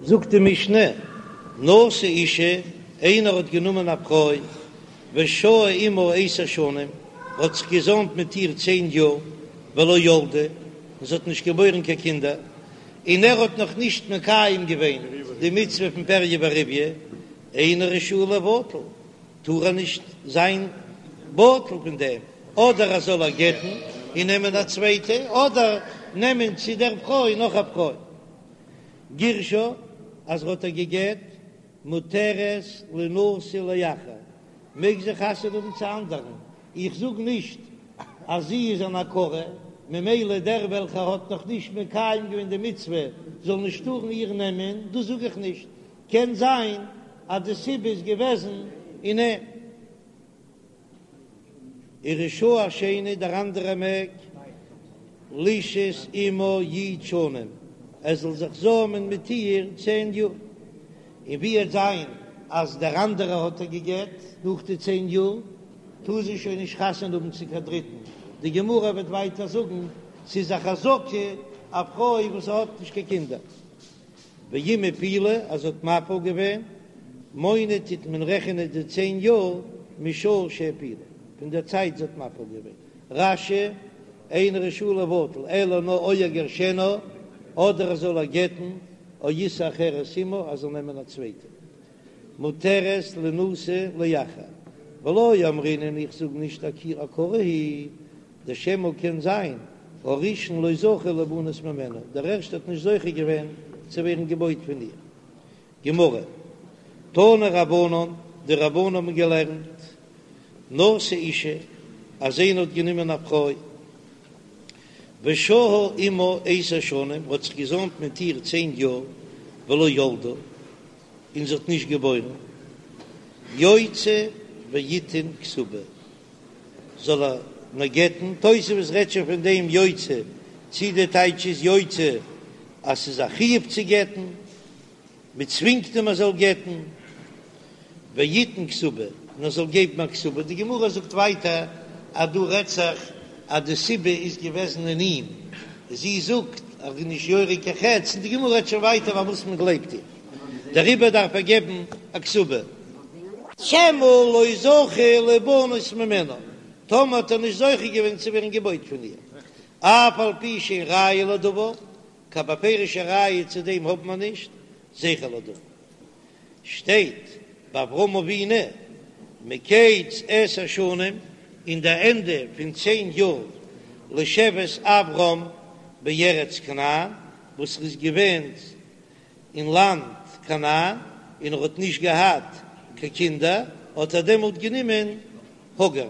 זאגט די משנה, נשא אישה, איינער האט גענומען א פרוי, ושהה עמה עשר שנים, האט זיך געזאמט מיט איר צען יאר, ולא ילדה, און זי האט נישט געבוירן קיין קינדער, און ער האט נאך נישט מקיים געווען די מצוה פון פריה ורביה, אינו רשאי לבטל, טאר ער נישט זיין בטל פון דעם, אדער ער זאל איר גט'ן און נעמען א צווייטע, אדער נעמען צו דער פרוי נאך א פרוי. גירשה, אז ער האט איר גע'גט, מותרת לינשא לאחר, מעג זי חתונה האבן צו אנדערן, איך זאג נישט אז זי איז אן עקרה, ממילא דער וועלכער האט נאך נישט מקיים געווען די מצוה זאל נישט טארן איר נעמען, דאס זאג איך נישט, קען זיין אז די סיבה איז געוועזן אין אים. ורשאי השני, דער אנדערע מעג לשהות עמה י' שנים, ער זאל זיך זאמען מיט איר צען יאר, און ווי וועט זיין אז דער אנדערע האט איר גע'גט נאך די צען יאר, טאר זי שוין נישט חתונה האבן צו קיין דריטן, די גמרא וועט ווייטער זאגן ס'איז א חזקה א פרוי וואס האט נישט קיין קינדער. ואם הפילה אז זי האט מפיל געווען, מונה טוט מען רעכענען די צען יאר משעה שהפילה, פון דער צייט זי האט מפיל געווען. רש"י, אינו רשאי לבטל, אלא נאר או יגרשנה, אדער ער זאל איר גט'ן, או ישא אחרת עמה, ער זאל נעמען א צווייטע. מותרת לינשא לאחר, ולא אמרינן איך זאג נישט עקרה היא, דשמא קען זיין הראשון לא זכה ליבנות ממנה, דער ערשטער האט נישט זוכה געווען צו ווערן געבויט פון איר. גמרא, תנו רבנן, די רבנן האבן געלערנט, נשא אישה, אז איינער האט גענומען א פרוי, ושהה עמה עשר שנים, האט זיך געזאמט מיט איר צען יאר, ולא ילדה, און זי האט נישט געבוירן, יוציא ויתן כתובה, זאל ער נאר גט'ן, תוספות רעדט שוין פון דעם יוציא, צי די טייטש איז יוציא אז ס'איז א חיוב צו גט'ן, מ'צווינגט אים ער זאל גט'ן, ויתן כתובה, און ער זאל געבן א כתובה, די גמרא זאגט ווייטער אז דא רעדט זיך אז די סיבה איז געוועזן אין אים, זי זאגט אז ער איז נישט יורה קיין חץ, און די גמרא רעדט שוין ווייטער פארוואס מען גלייבט איר, דעריבער דארף ער געבן א כתובה. שמא לא זכה ליבנות ממנה, טאמער האט ער נישט זוכה געווען צו ווערן געבויט פון איר, אף על פי שאין ראיה לדבר, קיין בפירוש'ע ראיה צו דעם האבן מיר נישט, זכר לדבר. שטייט ביי אברהם אבינו מקץ עשר שנים, אין די ענדע פון צען יאר לשבת אברם בארץ כנען, וואס ער איז געווען אין לאנד כנען, און ער האט נישט געהאט קיין קינדער, האט ער דעמאלט גענומען הגר.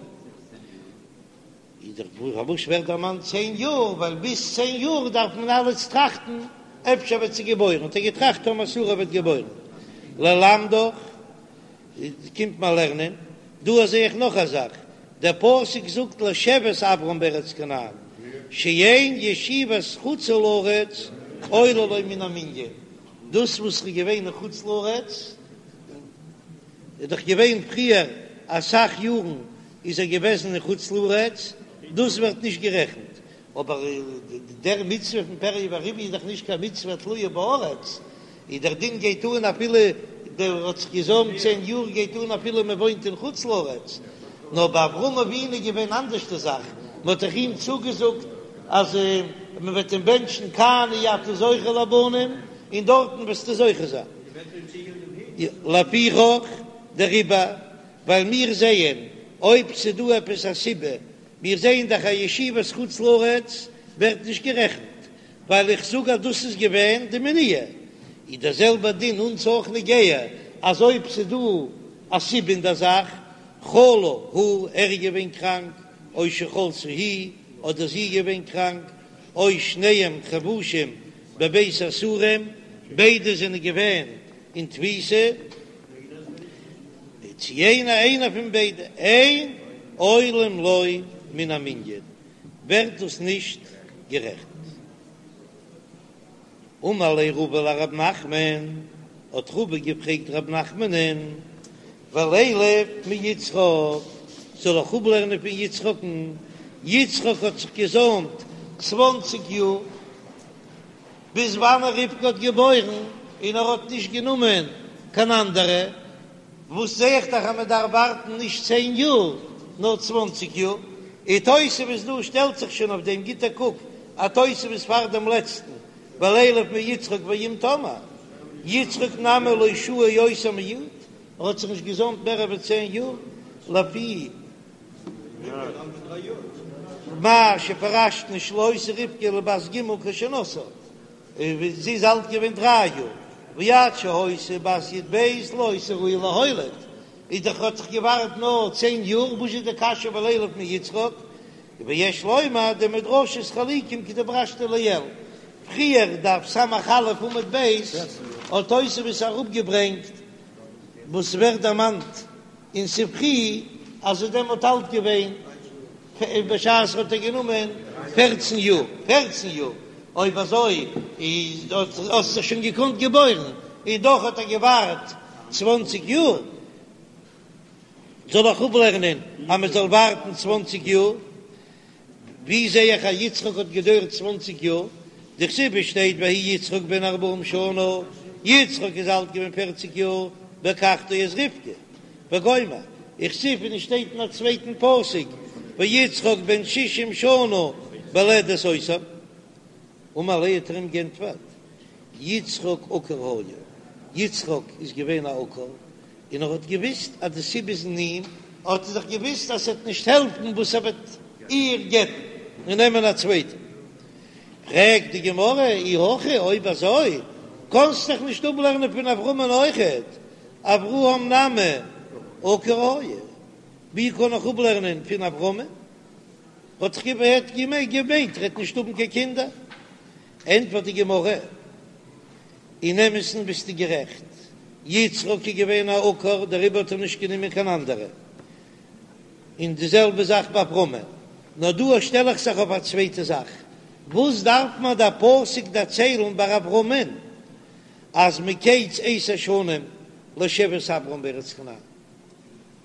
איז דאך פארוואס ווערט דערמאנט צען יאר, ווייל ביז צען יאר דארף מען אלעס טראכטן, אפשר וועט זי געבוירן, האט ער געטראכט טאמער שרה וועט געבוירן. ללמדך, קומט מען לערנען, דא זע איך נאך א זאך, דער פסוק זאגט לשבת אברם בארץ כנען, שאין ישיבת חוץ לארץ עולה לו מן המנין, דאס וואס ר'איז געווען אין חוץ לארץ, איז דאך געווען פריער אסאך יארן איז ער געוועזן אין חוץ לארץ, דאס ווערט נישט גערעכנט, אבער דער מצוה פון פריה ורביה איז דאך נישט קיין מצוה תלויה בארץ, און דער דין גייט אן אפילו דער האט זיך געזוימט צען יאר גייט אן אפילו מען וואוינט אין חוץ לארץ, נאר ביי אברהם אבינו איז געווען אנדערש די זאך, מען האט דאך אים צוגעזאגט אז מען וועט אים בענטשן כאן אי אתה זוכה לבנים און דארטן וועסטו זוכה זיין. לפיכך דעריבער ווייל מיר זעען אויב ס'דא עפעס א סיבה, מיר זעען דאך אז ישיבת חוץ לארץ ווערט נישט גערעכנט, ווייל איך זאג אז דאס איז געווען די מניעה, איז דער זעלבער דין אונז אויך נוגע, אז אויב ס'דא א סיבה אין דער זאך, חלה הוא, ער איז געווען קראנק, או שחלתה היא, אדער זי איז געווען קראנק, או שניהם חבושים בבית האסורים, ביידע זענען געווען אין תפיסה, צו איינער איינער פון ביידע, אין עולים לו מן המנין, ווערט דאס נישט גערעכנט. אמר ליה רבא לרב נחמן, האט רבא געפרעגט רב נחמנ'ן, ולילף מיצחק, זאל איך אפלערנען פון יצחק'ן, יצחק האט זיך געזוימט צוואנציג יאר, ביז וואנען רבקה האט געבוירן? און ער האט נישט גענומען קיין אנדערע, וואס זע איך דאך אז מען דארף ווארטן נישט צען יאר נאר צוואנציג יאר, און תוספות דא שטעלט זיך שוין אויף דעם, גיט א קוק א תוספות פאר דעם לעצטן, ולילף מיצחק ואם תאמר יצחק נמי לא שהה יותר מי', ער האט זיך נישט געזוימט מער ווי צען יאר, לפי מה שפירשנו שלא היתה רבקה אלא בת ג' כשנשאה, און זי איז אלט געווען דריי יאר, ועד שהיתה בת י"ב לא היתה ראויה להוליד, איז דאך האט זיך געווארט נאר צען יאר, וואס איז די קשיא ולילף מיצחק? ויש לומר דמדרשות חלוקים כדפרשנו לעיל, פריער דף ס"א עמוד ב' האט תוספות אראפגעברענגט וואס ווערט דערמאנט אין ספרי אז איז דעמאלט אלט געווען בשעת האט ער גענומען פערצן יאר, פערצן יאר, אויב אזוי איז האט זיך שוין געקאנט געבוירן, און דאך האט ער געווארט צוואנציג יאר, זאל איך אפלערנען אז מען זאל ווארטן צוואנציג יאר? ווי זע איך אז יצחק האט געדויערט צוואנציג יאר? דכתיב שטייט ויהי יצחק בן ארבעים שנה, יצחק איז אלט געווען פערציג יאר, בקחתו את רבקה, וגומר, וכתיב און עס שטייט אין א צווייטן פסוק ויצחק בן שישים שנה בלדת אותם, אמר ליה האט ער אים גענטפערט, יצחק עקור היה, יצחק איז געווען א עקור, און ער האט געוויסט אז די סיבה איז אין אים, האט ער דאך געוויסט אז ס'וועט נישט העלפן וואס ער וועט איר גט'ן און נעמען א צווייטע. פרעגט די גמרא, אי הכי, אויב אזוי קאנסט דאך נישט אפלערנען פון אברהמ'ן אויכעט, אברהם נמי עקור היה, ווי קען איך אפלערנען פון אברהמ'ן? האט דאך געמיינט ער וועט נישט האבן קיין קינדער. ענטפערט די גמרא, אין אמת'ן ביסטו גערעכט, יצחק איז געווען א עקור דעריבער האט ער נישט גענומען קיין אנדערע, און די זעלבע זאך ביי אברהמ'ן, נאר דא שטעל איך זיך אויף א צווייטע זאך, וואס דארף מיר דער פסוק דערציילן ביי אברהמ'ן אז מקץ עשר שנים לשבת אברם בארץ כנען?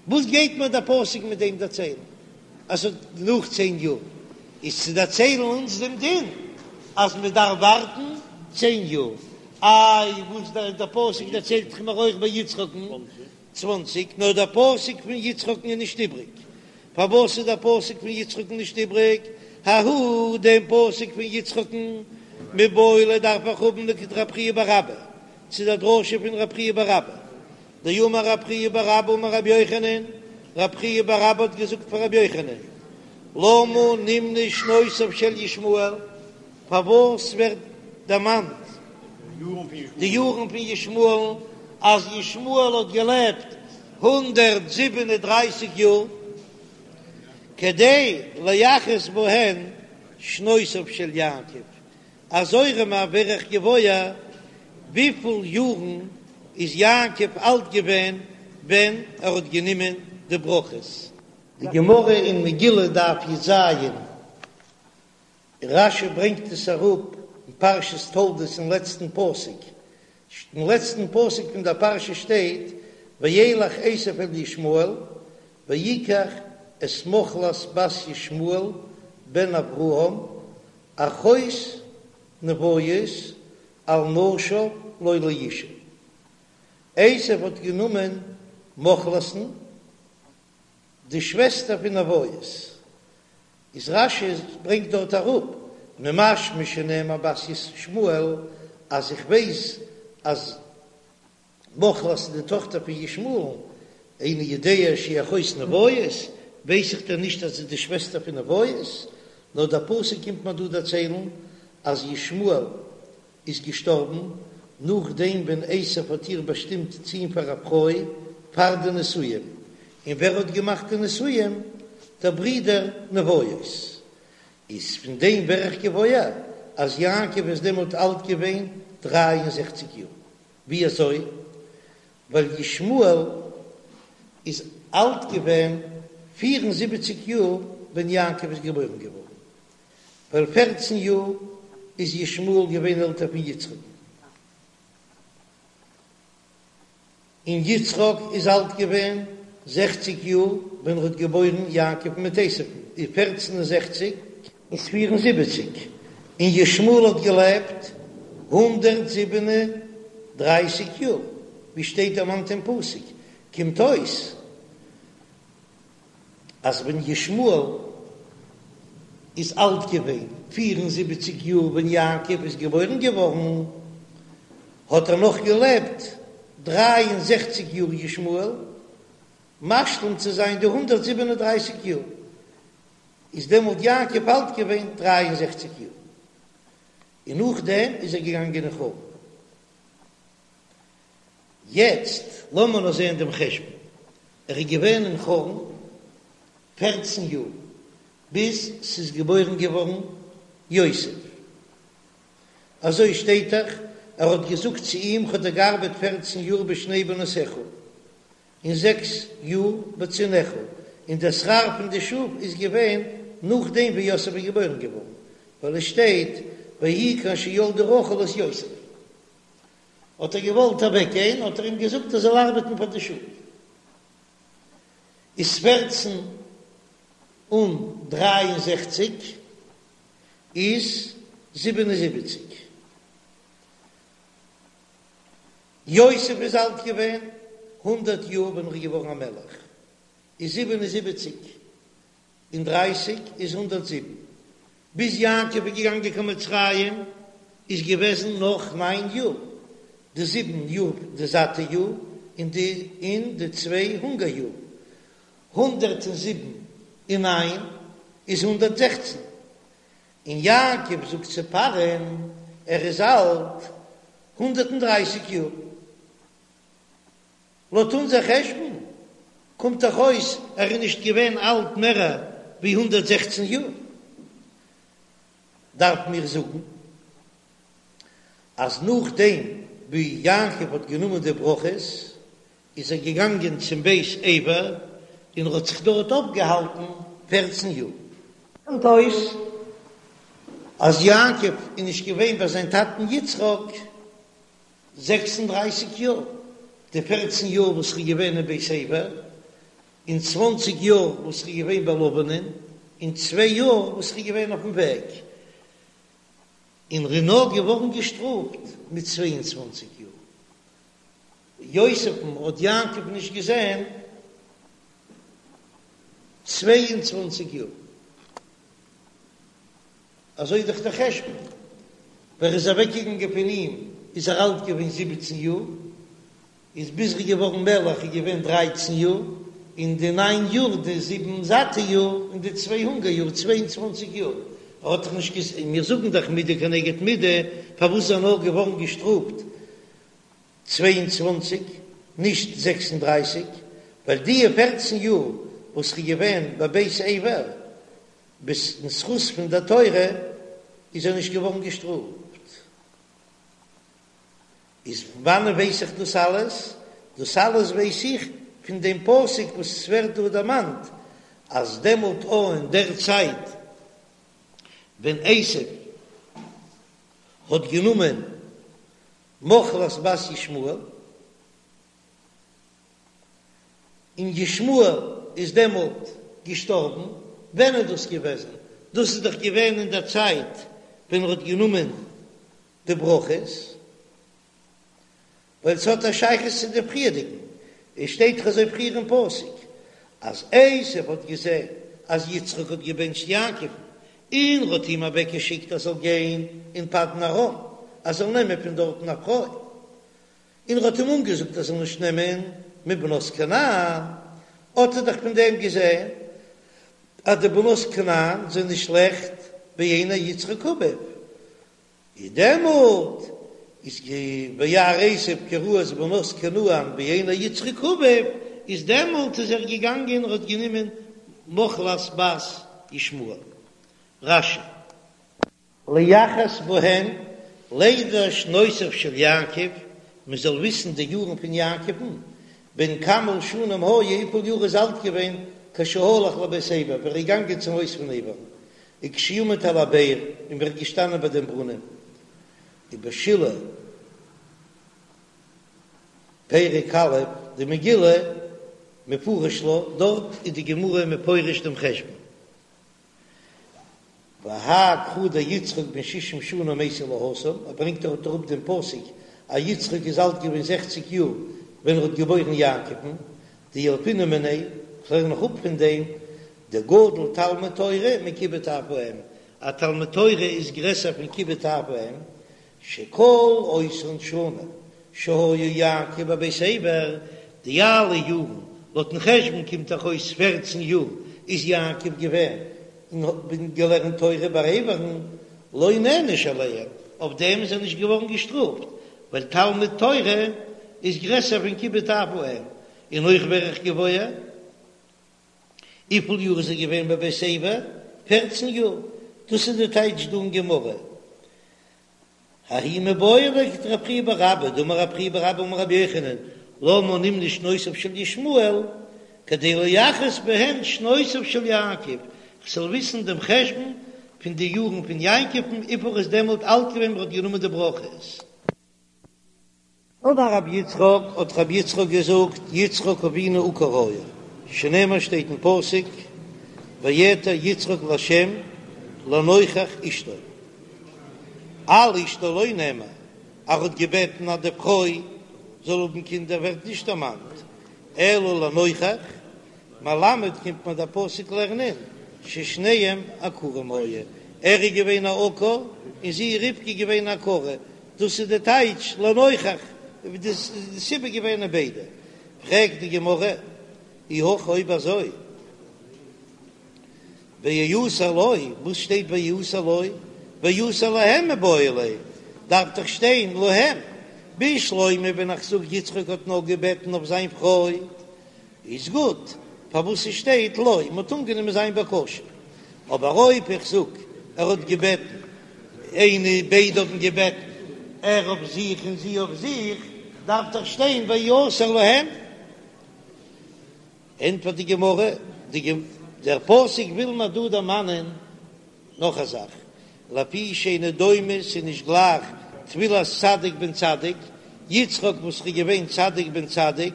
וואס גייט מיר דער פסוק מיט דעם דערציילן אז ס'האט נאך צען יאר? איז צו דערציילן אונז דעם דין אז מען דארף ווארטן צען יאר. איי וואס דער דער פסוק דערציילט דאך מיר אויך ביי יצחק'ן צוואנציג, נאר דער פסוק פון יצחק'ן איז נישט איבריג. פארוואס איז דער פסוק פון יצחק'ן נישט איבריג? ההוא דעם פסוק פון יצחק'ן מיבעי ליה דארף איך האבן לכדרב חייא בר אבא, צו דער דרשה פון רב חייא בר אבא. דאמר רב חייא בר אבא אמר רבי יוחנן, רב חייא בר אבא האט געזאגט פאר רבי יוחנן, למה נמנו שנותיו של ישמעאל, פארוואס ווערט דערמאנט די יארן פון ישמעאל'ן, אז ישמעאל האט געלעבט 137 יאר, כדי לייחס בהן שנותיו של יעקב, אזוי ארום ווער איך געוואויר וויפיל יארן איז יעקב אלט געווען ווען ער האט גענומען די ברכות. די גמרא אין מגילה דף י"ז, רש"י ברענגט עס אראפ אין פרשת תולדות אין לעצטן פסוק, אין לעצטן פסוק פון דער פרשה שטייט וילך עשו אל ישמעאל ויקח את מחלת בת ישמעאל בן אברהם אחות נביות על נשיו לו לאשה. עשו האט גענומען מחלת'ן, די שוועסטער פון נביות. איז רש"י ברענגט דארט אראפ, ממשמע שנאמר בת ישמעאל, אז איך ווייס אז מחלת איז די טאכטער פון ישמעאל, איני יודע שהיא אחות נביות, ווייס איך דען נישט אז זי איז די שוועסטער פון נביות? נאר דער פסוק קומט מיר דא דערציילן אז ישמעאל איז געשטארבן נאכדעם ווען עשו האט איר באשטימט צו אים פאר א פרוי פאר די נישואים, און ווער האט געמאכט די נישואים? דער ברודער נביות. איז פון דעם ווער איך געוואויר אז יעקב איז דעמאלט אלט געווען 63 יאר. ווי אזוי? ווייל ישמעאל איז אלט געווען 74 יאר ווען יעקב איז געבוירן געווארן, ווייל פערצן יאר איז ישמעאל געווען עלטער פון יצחק'ן. און יצחק איז אלט געווען זעכציק יאר ווען ער האט געבוירן יעקב מיט עשו'ן, איז פערצן און זעכציק איז 74, און ישמעאל האט געלעבט 137. דרייסיג יאר, ווי שטייט דערמאנט אין פסוק, קומט אויס אז ווען ישמעאל איז אלט געווען פיר און זיבעציג יאר ווען יעקב איז געבוירן געווארן, האט ער נאך געלעבט 63 יאר ישמעאל, משלים צו זיין די 137 יאר, איז דעמאלט יעקב אלט געווען 63 יאר, און נאכדעם איז ער געגאנגען אין חרן. יעצט לאמיר נאר זען דעם חשבון, ער איז געווען אין חרן פערצן יאר ביז ס'איז געבוירן געווארן יוסף, אזוי שטייט דאך, ער האט געזאגט צו אים כ'האב דיר געארבעט פערצן יאר בשני בנותיך, און זעקס יאר בצאנך, און דער שכר פון די שאף איז געווען נאכדעם ווי יוסף איז געבוירן געווארן, ווייל עס שטייט ויהי כאשר ילדה רחל את יוסף. האט ער געוואלט אוועק גיין, האט ער אים געזאגט ער זאל ארבעטן פאר די שאף. איז פערצן און דריי און זעכציק איז 77. יוסף איז אלט געווען הונדערט יאר ווען ער איז געווארן א מלך, איז 77 און דרייסיג איז 107. ביז יעקב איז געגאנגען קיין מצרים איז געוועזן נאך ניין יאר, די זיבן יאר די זאטע יאר און די און די צוויי הונגער יאר, 107 און ניין איז 116, און יעקב זאגט צו פרעה'ן ער איז אלט 130 יאר. לויט אונזער חשבון קומט דאך אויס ער איז נישט געווען אלט מער ווי 116 יאר. דארף מיר זאגן אז נאכדעם ווי יעקב האט גענומען די ברכות איז ער געגאנגען צום בית עבר און ער האט זיך דארט אויפגעהאלטן פערצן יאר. קומט אויס אז יעקב איז נישט געווען ביי זיין טאטן יצחק 36 יאר, די פערצן יאר וואס ער איז געווען אין בית עבר, און צוואנציג יאר וואס ער איז געווען ביי לבנ'ען, און צוויי יאר וואס ער איז געווען אויפן וועג, און ער איז נאר געווארן געשטראפט מיט 22 יאר. יוסף'ן האט יעקב נישט געזען 22 יאר. אזוי איז דאך דער חשבון, ווען ער איז אוועקגעגאנגען פון אים איז ער אלט געווען זיבעצן יאר, איז ביז ער איז געווארן מלך איז געווען דרייצן יאר, און די ניין יאר, די זיבן זאטע יאר, און די צוויי הונגער יאר, צוויי און צוואנציג יאר, ער האט דאך נישט געז. און מיר זאגן דאך מידה כנגד מידה, פארוואס איז ער נאר געווארן געשטראפט צוויי און צוואנציג, נישט זעקס און דרייסיג, ווייל די פערצן יאר וואס ער איז געווען בבית עבר, אין זכות פון דער תורה איז ער נישט געווארן געשטראפט. איז פון וואנען ווייס איך דאס אלעס? דאס אלעס ווייס איך פון דעם פסוק וואס עס ווערט דא דערמאנט אז דעמאלט או אין דער צייט ווען עשו האט גענומען מחלת בת ישמעאל, און ישמעאל איז דעמאלט געשטארבן, ווען איז דאס געוועזן? דאס איז דאך געווען אין דער צייט ווען ער האט גענומען די ברכות, ווייל ס'האט א שייכות צו די פריערדיגן, עס שטייט דאך אזוי פריער אין פסוק אז עשו האט געזען אז יצחק האט געבענטשט יעקב'ן, און ער האט אים אוועקגעשיקט ער זאל גיין אין פדן ארם, ער זאל נעמען פון דארטן א פרוי. און ער האט אים אנגעזאגט ער זאל נישט נעמען מבנות כנען, האט ער דאך פון דעם געזען אז די בנות כנען זענען שלעכט בעיני יצחק אביו, איז דעמאלט איז וירא עשו כי רעות בנות כנען בעיני יצחק אביו, איז דעמאלט איז ער געגאנגען און האט גענומען מחלת בת ישמעאל. רש"י. ליחס בהן לידע שנותיו של יעקב, מען זאל וויסן די יארן פון יעקב'ן, בן כמה שנים היה, וויפיל יאר איז אלט געווען, כשהלך לבית עבר, ווען ער איז געגאנגען צום הויז פון עבר, וכשעמד על הבאר, און ווען ער איז געשטאנען ביי דעם ברונעם, ובשילהי פרק א' דמגילה מפרש לה, דארט איז די גמרא מפרש דעם חשבון. והאי קרא דיצחק בן שישים שנה מייתי להתם, ער ברענגט דארט אראפ דעם פסוק. אז יצחק איז אלט געווען זעכציג יאר ווען ער האט געבוירן יעקב'ן, דילפינן מיניה, כ'לערן נאך אפ פון דעם, דגדול תלמוד תורה מכיבוד אב ואם, א תלמוד תורה איז גרעסער פון כיבוד אב ואם, שכל אותן שנים שהיה יעקב בבית עבר, די אלע יארן, לויטן חשבון קומט דאך אויס פערצן יאר, איז יעקב געווען און האט געלערנט תורה ביי עבר'ן, לא נענש עליהם, אויף דעם איז ער נישט געווארן געשטראפט, ווייל תלמוד תורה איז גרעסער פון כיבוד אב ואם, און אויך ווער איך געוואויר. וויפיל יאר איז ער געווען בבית עבר? פערצן יאר. דאס איז די טייטש דא אין גמרא. ההוא מיבעי ליה לכדרב חייא בר אבא, דאמר רב חייא בר אבא אמר רבי יוחנן, למה נמנו שנותיו של ישמעאל, כדי לייחס בהן שנותיו של יעקב, כ'זאל וויסן דעם חשבון פון די יארן פון יעקב'ן וויפיל ער איז דעמאלט אלט געווען ווען ער האט גענומען די ברכות. אמר רבי יצחק, האט רבי יצחק געזאגט, יצחק אבינו עקור היה, שנאמר שטייט אין פסוק, ויעתר יצחק לה' לנוכח אשתו. על אשתו לא נאמר, ער האט געבעטן אז די פרוי זאל האבן קינדער ווערט נישט דערמאנט, אלא לנוכח, מלמד קומט מיר דער פסוק לערנען ששניהם עקורים היו, ער איז געווען א עקור און זי רבקה איז געווען א עקרה, דאס איז די טייטש לנוכח, די סיבה געווען אין ביידע. פרעגט די גמרא, אי הכי אויב אזוי ויעתר לו, וואס שטייט ויעתר לו? ויעתר להם מיבעי ליה, דארף דאך שטיין להם, בשלמא ווען איך זאג יצחק האט נאר געבעטן אויף זיין פרוי, איז גוט, פארוואס ס'שטייט לו, מ'האט אנגענומען זיין בקשה. אבער אויב איך זאג ער האט געבעטן, איינע, ביידע האבן געבעטן, ער אויף זיך און זי אויף זיך, דארף דאך שטיין ויעתר להם. ענטפערט די גמרא, דער פסוק וויל מיר דא דערמאנען נאך א זאך, לפי שאינו דומה, ס'איז נישט גלייך תפילת צדיק בן צדיק, יצחק וואס איז געווען צדיק בן צדיק,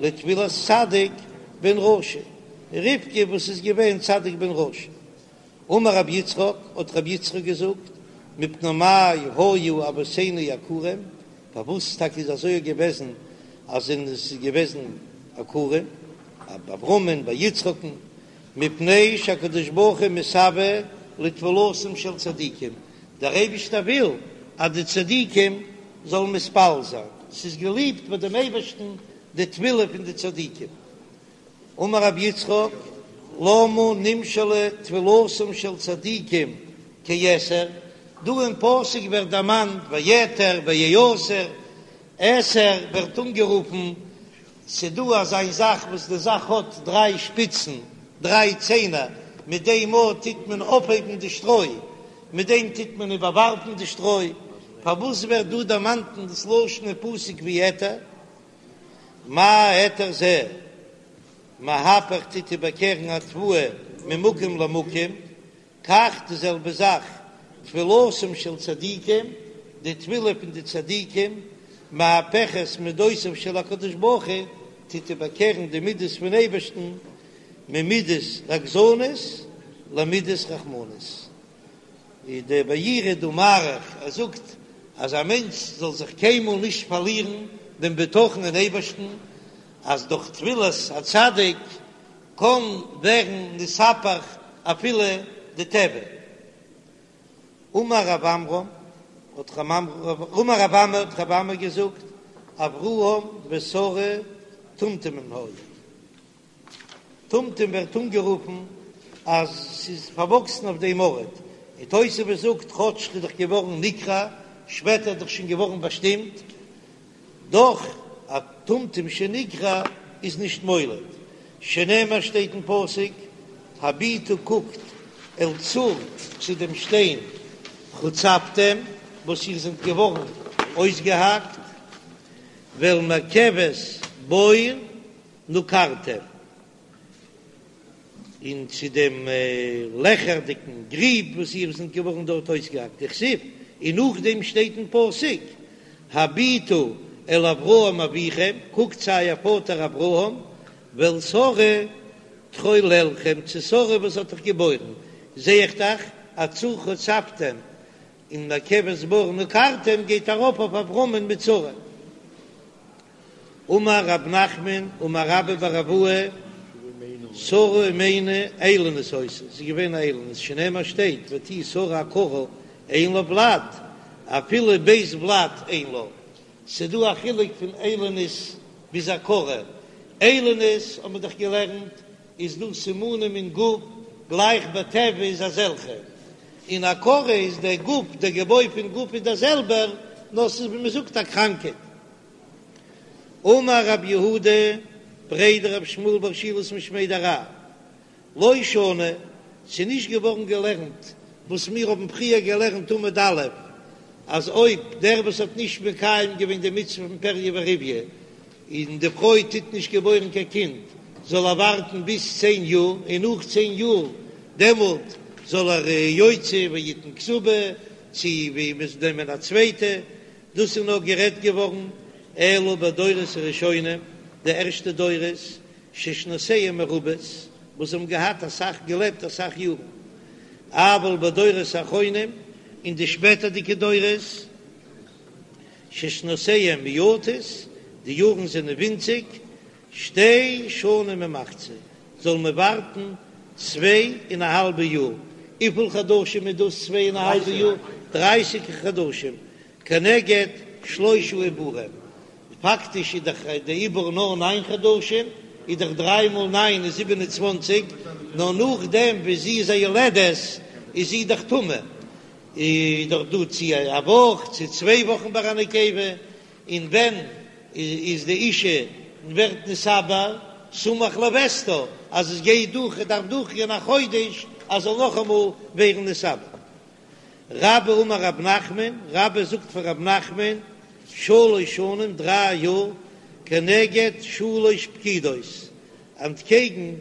לתפילת צדיק בן רשע, רבקה וואס איז געווען צדיק בן רשע. אמר רבי יצחק, האט רבי יצחק געזאגט, מפני מה היו אבותינו עקורים, פארוואס טאקע איז אזוי געוועזן אז עס איז געוועזן עקורים, ביי אברהמ'ן ביי יצחק'ן, מפני שהקדוש ברוך הוא מתאוה לתפילתם של צדיקים, דער אייבערשטער וויל אז די צדיקים זאלן מתפלל זיין, ס'איז געליבט ביי דעם אייבערשטן די תפילה פון די צדיקים. אמר רבי יצחק, למה נמשלה תפילתם של צדיקים כעתר, דא אין פסוק ווערט דערמאנט ויעתר ויעתר, עתר ווערט אנגערופן ס'דא אזא זאך וואס די זאך האט דריי שפיצן, דריי ציינער, מיט דעם מאל טוט מען אויפהייבן די שטרוי, מיט דעם טוט מען איבערווארפן די שטרוי, פארוואס ווערט דא דערמאנט אין דאס לשון אין פסוק ווי עתר? מה עתר זה מהפך טוט איבערקערן התבואה ממקום למקום, כך די זעלבע זאך תפילתם של צדיקים, די תפילה פון די צדיקים, מהפכת מדותיו של הקדוש ברוך הוא, טוט איבערקערן די מידות פון אייבערשטן, ממידת רגזנות למידת רחמנות. איז דער מאירי דא מאריך, ער זאגט אז א מענטש זאל זיך קיינמאל נישט פארלירן דעם בטחון אין אייבערשטן, אז דורך תפילת הצדיק קען ווערן נתהפך אפילו די טבע. אמר רב עמרם, האט אמר רב אמי האט רב אמי געזאגט, אברהם ושרה טומטומים היו. טומטום ווערט אנגערופן אז ס'איז פארוואקסן אויף דעם ארט, און תוספות זאגט כאטש ס'איז דאך געווארן נקרע, שפעטער איז דאך שוין געווארן באשטימט, דאך א טומטום שנקרע איז נישט מוליד, שנאמר שטייט אין פסוק, הביטו קוקט אל צור צו דעם שטיין חוצבתם וואס איר זענט געווארן אויסגעהאקט, ואל מרכבת בור נקרתם. און צו דעם לעכערדיקן גריב וואס איר זענט געווארן דארט אויסגעהאקט, דכתיב, און נאכדעם שטייט אין פסוק, הביטו אל אברהם אביכם, קוקט צו אייער פאטער אברהם, ואל שרה תחוללכם, צו שרה וואס האט אייך געבוירן, זע איך דאך אז צור חוצבתם. און מקבת בור נקרתם גייט ארויף אויף אברהמ'ן מיט שרה. אמר רב נחמן אמר רבה בר אבוה, שרה אמנו איילונית היתה, זי איז געווען א איילונית, שנאמר שטייט ותהי שרה עקרה אין לה ולד, אפילו בית ולד אין לה, ס'דא א חילוק פון איילונית ביז עקרה, איילונית האט מען דאך געלערנט איז דא סימנים אין גוף גלייך בטבע איז אזעלכע, און עקרה איז דער גוף, דער געבוי פון גוף איז דער זעלבער, נאר ס'איז ווי מ'זאגט א קראנקייט. אמר רב יהודה בריה דרב שמואל בר שילת משמיה דרב, לא שנו, ס'איז נישט געווארן געלערנט וואס מיר האבן פריער געלערנט עמוד א', אז אויב דער וואס האט נישט מקיים געווען די מצוה פון פריה ורביה, און די פרוי טוט נישט געבוירן קיין קינד, זאל ער ווארטן ביז צען יאר, און נאך צען יאר דעמאלט זאל ער יוציא ויתן כתובה, צו ווי מ'זאל נעמען א צווייטע, דאס איז נאר גערעדט געווארן אלא בדורות הראשונים, די ערשטע דורות, ששנותיהם מרובות, וואס האבן געהאט אסאך געלעבט אסאך יארן, אבל בדורות האחרונים, אין די שפעטערדיגע דורות, ששנותיהם מועטות, די יארן זענען ווינציג, שתי שנים ומחצה, זאל מען ווארטן צוויי און א האלבע יאר, וויפיל חדשים איז דאס צוויי און א האלבע יאר? דרייסיג חדשים, כנגד שלושה עיבורים, פאקטיש איז דאך די עיבור נאר ניין חדשים, איז דאך דריי מאל ניין איז 27, נאר נאכדעם ווי זי איז א יולדת איז זי דאך טמא, איז דאך דא צו א וואך צו צוויי וואכן ביי א נקבה, און ווען איז די אישה ווערט נתעבר סמוך לוסתה אז עס גייט דורך עס דארף דורכגיין א חודש אז זאל נאכאמאל ווערן נתעבר. רבה אמר רב נחמן, רבה זאגט פאר רב נחמן, שלש שנים דריי יאר כנגד שלש פקידות, אנטקעגן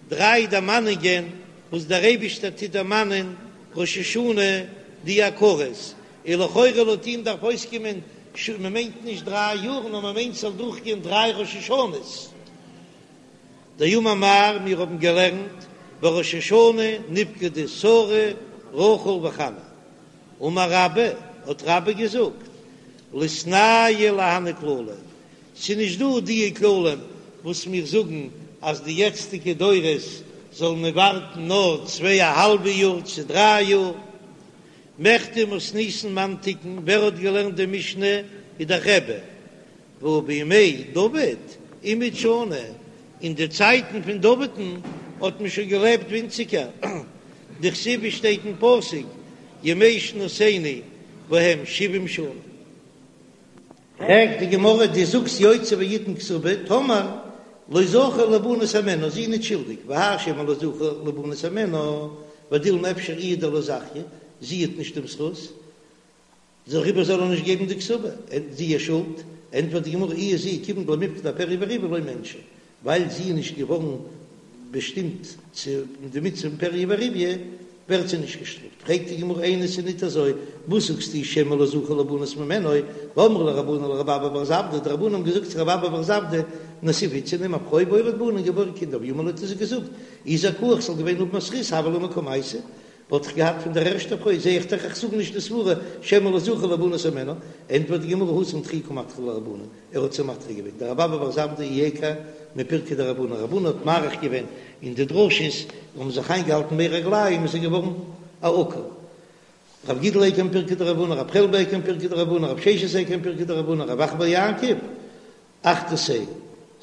דריי דערמאנונגען וואס דער אייבישטער טוט דערמאנען ראש השנה די עקרות, און לכאורה לויט אים דארף אויסקומען מען מיינט נישט דריי יאר נאר מען מיינט ס'זאל דורכגיין דריי ראש השנה'ס. דאמר מר, מיר האבן געלערנט בראש השנה נפקדו שרה רחל וחנה, אמר רבה, האט רבה געזאגט, ליתנהו להני כללי, ס'איז נישט דא די כללים וואס מיר זאגן אז די יעצטיגע דורות זאלן מען ווארטן נאר צוויי א האלבע יאר צו דריי יאר. מכדי מתניתין מאן תיקן, ווער האט געלערנט די משנה איז דאך רבי, והא בימי דוד אימעוט שני, אין די צייטן פון דוד'ן האט מען שוין געלעבט ווינציגער, דכתיב ווי שטייט אין פסוק ימי שנותינו בהם שבעים שנה. פרעגט די גמרא, דו זאגסט יוציא ויתן כתובה, טאמער לא זכה ליבנות הימנה, זי איז נישט שולדיג, והאי שמא לא זכה ליבנות הימנה, ודילמא אפשר איהי דלא זכיא, זי האט נישט דעם זכות, דעריבער זאל ער נישט געבן די כתובה, זי איז שולד, ענטפערט די גמרא, איהי זי כיוון דלא מיפקדה אפריה ורביה לא מיענשא, ווייל זי איז נישט געווארן באשטימט צו די מצוה פון פריה ורביה, ווערט זי נישט געשטראפט. פרעגט די גמרא איני ס'איז ניט אזוי, וואס זאגסטו שמא לא זכה ליבנות ממנה, והאמרי ליה רבנן לרבי אבא בר זבדא, די רבנן האבן געזאגט צו רבי אבא בר זבדא, נסיב איתתא נעם א פרוי ואוליד בני און געבוירן קינדער, ואמר להו האט ער זיי געזאגט, אי זכאי איך זאל געווען האבן א זכות הוה לי מקמייתא, וואלט איך געהאט פון דער ערשטער פרוי, זע איך דאך איך זאג נישט די סברה שמא לא זכה ליבנות הימנה, ענטפערט די גמרא התם דחויי קא מדחי להו רבנן, ער האט זיי מדחה געווען, דרבי אבא בר זבדא איעקר מפירקא דרב הונא, רב הונא האט מאריך געווען אין די דרשות, האבן זיך איינגעהאלטן מי רגליים איז ער געווארן א עקר. רב גידל איעקר מפירקא דרב הונא, רב חלבו איעקר מפירקא דרב הונא, רב ששת איעקר מפירקא דרב הונא, רב אחא בר יעקב, אחתתיה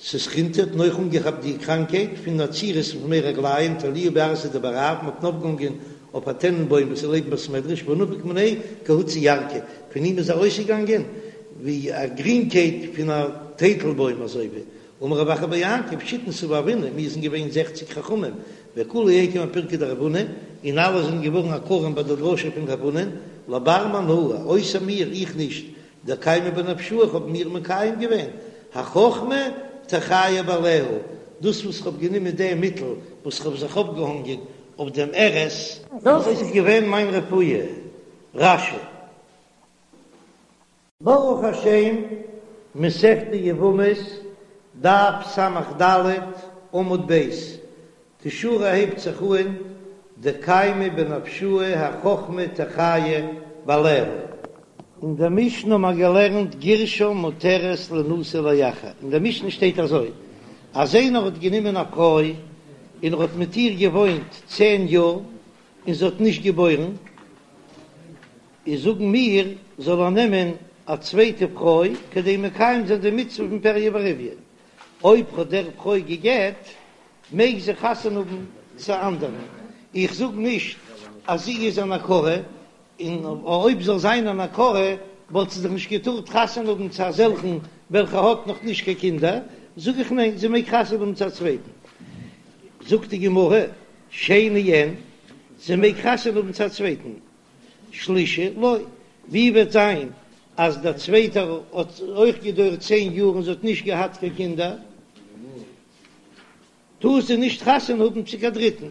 ססחינתא האט אויך אנגעכאפט די קראנקייט פון עצירות פון מי רגליים תליוה בי ארסא דבי רב, מ'האט אים אויפגעהאנגען אויף א טענענבוים וואס איז לעבן בית מדרש ונפק מיניה כהוצא ירקא, פון אים איז ארויסגעגאנגען ווי א גרינקייט פון א טייטלבוים אזוי ווי אמר רב אחא בר יעקב שיתין סבי הוינא מיר זענען געווען זעכציג חכמים וכולהו איעקרו מפירקא דרב הונא און אלע זענען געווארן עקרים ביי די דרשה פון רב הונא לבר מאנא אויסער מיר איך נישט דקיימי בנפשאי איך האב מיר מקיים געווען, החכמה תחיה בעליה, דאס וואס כ'האב גענומען דעם מיטל וואס כ'האב זיך אויפגעהאנגען אויף דעם ארז, דאס איז געווען מיין רפואה. רש"י. ברוך השם, מסכת יבמות, דף ס"ד, עמוד ב', די שורה הייבט זיך אהן, דקיימי בנפשאי החכמה תחיה. בעליה. אין דער משנה האבן מיר געלערנט גירשה מותרת לינשא לאחר, אין דער משנה שטייט אזוי, אז איינער האט גענומען א פרוי און ער האט מיט איר געוואוינט צען יאר און זי האט נישט געבוירן, איז זאגן מיר זאל ער נעמען א צווייטע פרוי כדי מקיים זיין די מצוה פון פריה ורביה, אויב האט דער פרוי גע'גט מעג זי חתונה האבן צו אנדערן, איך זאג נישט אז זי איז אן עקרה, און אויב זאל זיין אן עקרה וואלט זי דאך נישט געטארט חתונה האבן צו אזעלכן וועלכע האט נאך נישט קיין קינדער, זאג איך ניין זי מעג חתונה האבן צו א צווייטן. זאגט די גמרא, שני אין, זי מעג חתונה האבן צו א צווייטן, שלישי לא, ווי וועט זיין אז דער צווייטער האט אויך געדויערט צען יאר און זי האט נישט געהאט קיין קינדער, טאר זי נישט חתונה האבן צו קיין דריטן,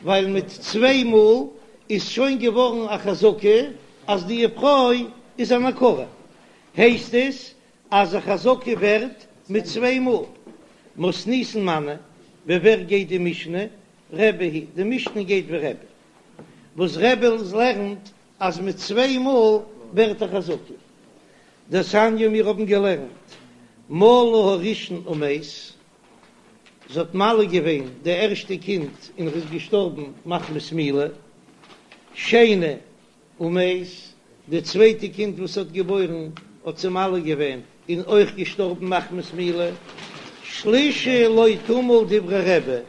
ווייל מיט צוויי מאל איז שוין געווארן א חזקה אז די פרוי איז אן עקרה, הייסט עס אז א חזקה ווערט מיט צוויי מאל. מתניתין מני, ווי ווער גייט די משנה? רבי היא, די משנה גייט ווי רבי, וואס רבי לערנט אז מיט צוויי מאל ווערט א חזקה. דתניא מיר האבן געלערנט מלה הראשון ומת, זי האט מל געווען די ערשטע קינד און ער איז געשטארבן מחמת מילה, שני ומת, די צווייטע קינד וואס האט געבוירן האט זי מל געווען און אויך געשטארבן מחמת מילה, שלישי לא תמול דברי רבי,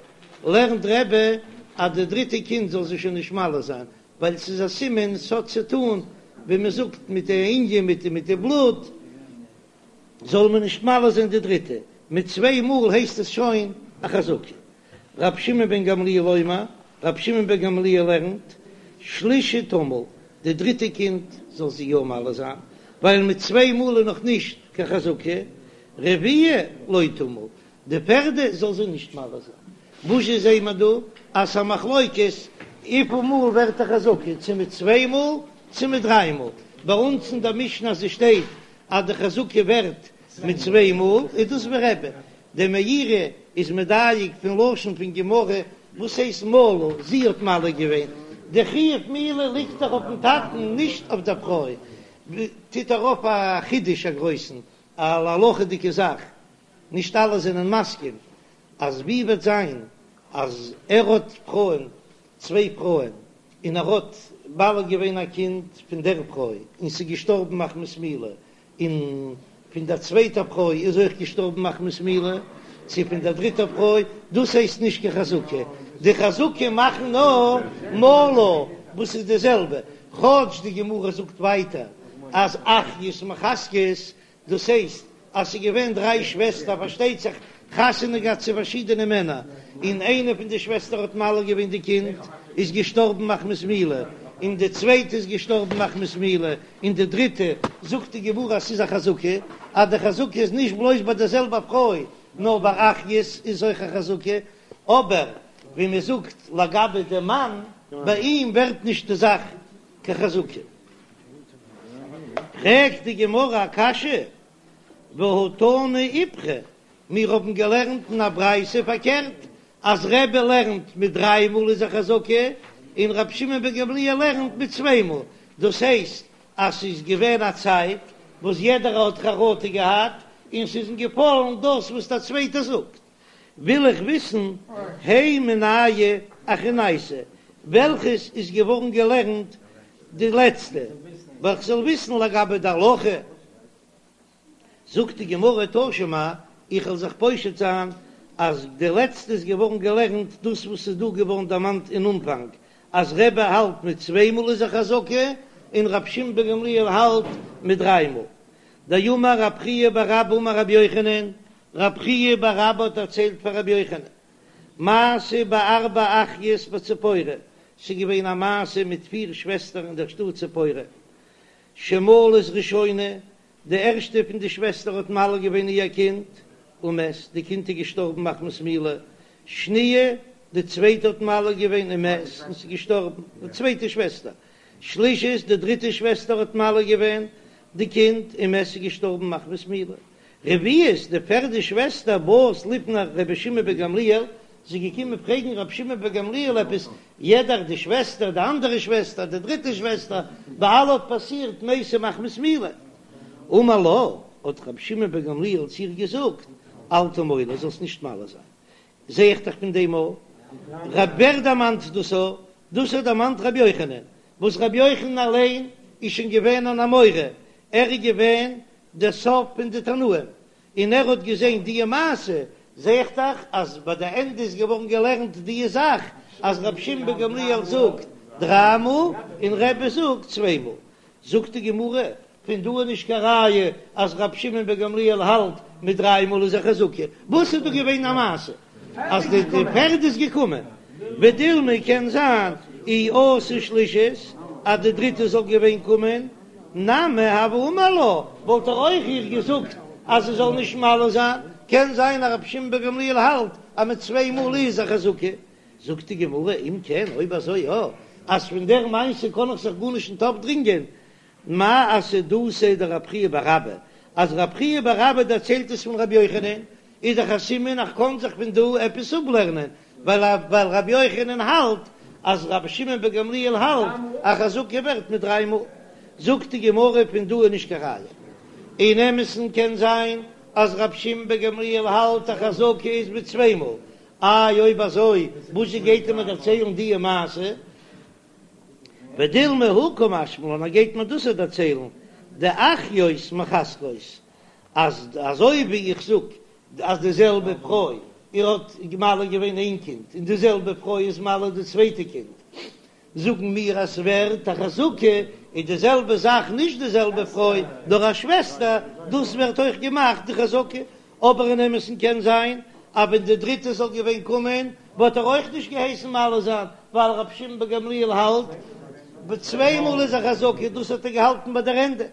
לערנט רבי אז די דריטע קינד זאל זי שוין נישט מל זיין, ווייל ס'איז א סימן ס'האט צו טאן ווי מ'זאגט מיט די ענין מיט מיט די בלוט, זאל מען נישט מל זיין די דריטע, מיט צוויי מאל הייסט עס שוין א חזקה. רבי שמעון בן גמליאל אומר, רבי שמעון בן גמליאל לערנט, שלישי תמול, די דריטע קינד זאל זי יא מל זיין, ווייל מיט צוויי מאל איז נאך נישט קיין חזקה, רביעי לא תמול, די פערדע זאל זי נישט מל זיין. וואזשע זעהן מיר דא? אז ס'א מחלוקת וויפיל מאל ווערט א חזקה, צו מיט צוויי מאל צו מיט דריי מאל. ביי אונז אין דער משנה אז עס שטייט אז די חזקה ווערט מיט צוויי מאל, איז דאס ווי רבי. דער מאירי איז מדייק פון לשון פון גמרא, וואס הייסט מלה? זי האט מל געווען. די חיוב מילה ליגט דאך אויפן טאטן נישט אויף דער פרוי. טוט ער אויף א חידוש א גרויסן, א הלכה'דיגע זאך. נישט אלע זענען מסכים אז ווי וועט זיין אז ער האט פרויען, צוויי פרויען, און ער האט מל געווען א קינד פון דער פרוי און ס'איז געשטארבן מחמת מילה, און פון דער צווייטער פרוי איז אויך געשטארבן מחמת מילה, צו פון דער דריטער פרוי, דאס הייסט נישט קיין חזקה, די חזקה מאכן נאר מלה וואס איז די זעלבע, כאטש די גמרא זאגט ווייטער אז אחיות מחזקות דאס הייסט אז ס'איז געווען דריי שוועסטער, פארשטייט זיך חתונה געהאט צו פארשידענע מענער, און איינע פון די שוועסטער האט מל געווען די קינד, איז געשטארבן מחמת מילה, און די צווייטע איז געשטארבן מחמת מילה, און די דריטע, זאגט די גמרא אז ס'איז א חזקה, אז די חזקה איז נישט בלויז ביי די זעלבע פרוי, נאר ביי אחיות איז אויך א חזקה, אבער ווי מען זאגט לגבי די מאן, ביי אים ווערט נישט די זאך קיין חזקה. פרעגט די גמרא א קשיא, והא תנא איפכא, מיר האבן געלערנט אין א ברייתא פארקערט, אז רבי לערנט מיט דריי מאל איז א חזקה, און רבי שמעון בן גמליאל לערנט מיט צוויי מאל, דאס הייסט אז ס'איז געווען א צייט וואס יעדער האט חרטה געהאט און ס'איז אים געפאלן דאס וואס דער צווייטער זאגט. וויל איך וויסן, הי מינייהו אחרנייתא, וועלכעס איז געווארן געלערנט די לעצטע, ווייל כ'זאל וויסן לגבי די הלכה. זאגט די גמרא תא שמע, איך וועל זיך פושט זיין אז די לעצטע איז געווארן געלערנט דאס וואס איז דא געווארן דערמאנט אין אנפאנג, אז רבי האלט מיט צוויי מאל איז א חזקה, און רבי שמעון בן גמליאל האלט מיט דריי מאל. דאמר רב חייא בר אבא אמר רבי יוחנן, רב חייא בר אבא האט דערציילט פאר רבי יוחנן, מעשה בארבע אחיות בציפורי, ס'איז געווען א מעשה מיט פיר שוועסטער אין דער שטאט ציפורי, שמלת ראשונה, די ערשטע פון די שוועסטער האט מל געווען איר קינד, ומת, די קינד איז געשטארבן מחמת מילה, שניה, די צווייטע האט מל געווען ומת, און ס'איז געשטארבן, די צווייטע שוועסטער, שלישית, די דריטע שוועסטער האט מל געווען די קינד, ומת, ס'איז געשטארבן מחמת מילה. רביעית, די פערדע שוועסטער, באת לפני רבי שמעון בן גמליאל, זי איז געקומען פרעגן רבי שמעון בן גמליאל עפעס. יעדער, די שוועסטער, די אנדערע שוועסטער, די דריטע שוועסטער, ביי אלע האט פאסירט מתה מחמת מילה. אמר לה, האט רבי שמעון בן גמליאל צו איר געזאגט, אל תמולי, זאלסט נישט מל זיין. זע איך דאך פון דעם א. רב ווער דערמאנט דאס א? דאס האט דערמאנט רבי יוחנן, וואס רבי יוחנן אליין איז שוין געווען אן אמורא, ער איז געווען דער סוף פון די תנאים, און ער האט געזען דיע מעשה, זע איך דאך אז ביי די ענדע איז געווארן געלערנט דיע זאך אז רבי שמעון בן גמליאל זאגט דריי מאל און רבי זאגט צוויי מאל, זאגט די גמרא, פון דא איז נישט קיין ראיה אז רבי שמעון בן גמליאל האלט מיט דריי מאל איז א חזקה, וואס איז דא געווען א מעשה אז די פערד איז געקומען, ודילמא קען זיין אי אתא שלישית אז די דריטע זאל געווען קומען, נמי הוה אמר לה, וואלט ער אויך איר געזאגט אז זי זאל נישט מל זיין, קען זיין אז רבי שמעון בן גמליאל האלט אז מיט צוויי מאל איז א חזקה, זאגט די גמרא אם כן אויב אזוי יא, אז פון דער מעשה קען איך זיך גארנישט ניט אפדרינגען, מאי אסהדותיה דרב חייא בר אבא, אז רב חייא בר אבא דערציילט עס פון רבי יוחנן, איז דאך א סימן אז כ'קען זיך פון דא עפעס אפלערנען, ווייל ווייל רבי יוחנן האלט אז רבי שמעון בן גמליאל האלט א חזקה ווערט מיט דריי מאל. זאגט די גמרא פון דא איז נישט קיין ראיה. אין אמת'ן קען זיין אז רבי שמעון בן גמליאל האלט א חזקה איז מיט צוויי מאל, איי אויב אזוי וואזשע גייט ער מיר דערציילן דיע מעשה? ודילמא הא קא משמע לן, ער גייט מיר דאס דערציילן, דאחיות מחזקות, אז אזוי ווי איך זאג אז די זעלבע פרוי איר האט מל געווען איין קינד און די זעלבע פרוי איז מל די צווייטע קינד, זאגן מיר אז ס'ווערט א חזקה, איז די זעלבע זאך נישט די זעלבע פרוי נאר א שוועסטער, דאס ווערט אויך געמאכט די חזקה, אבער אין אמת'ן קען זיין אז ווען די דריטע זאל געווען קומען וואלט ער אויך נישט געהייסן מל זיין, ווייל רבי שמעון בן גמליאל האלט ביי צוויי מאל איז א חזקה, דאס האט ער געהאלטן ביי דער ענדע.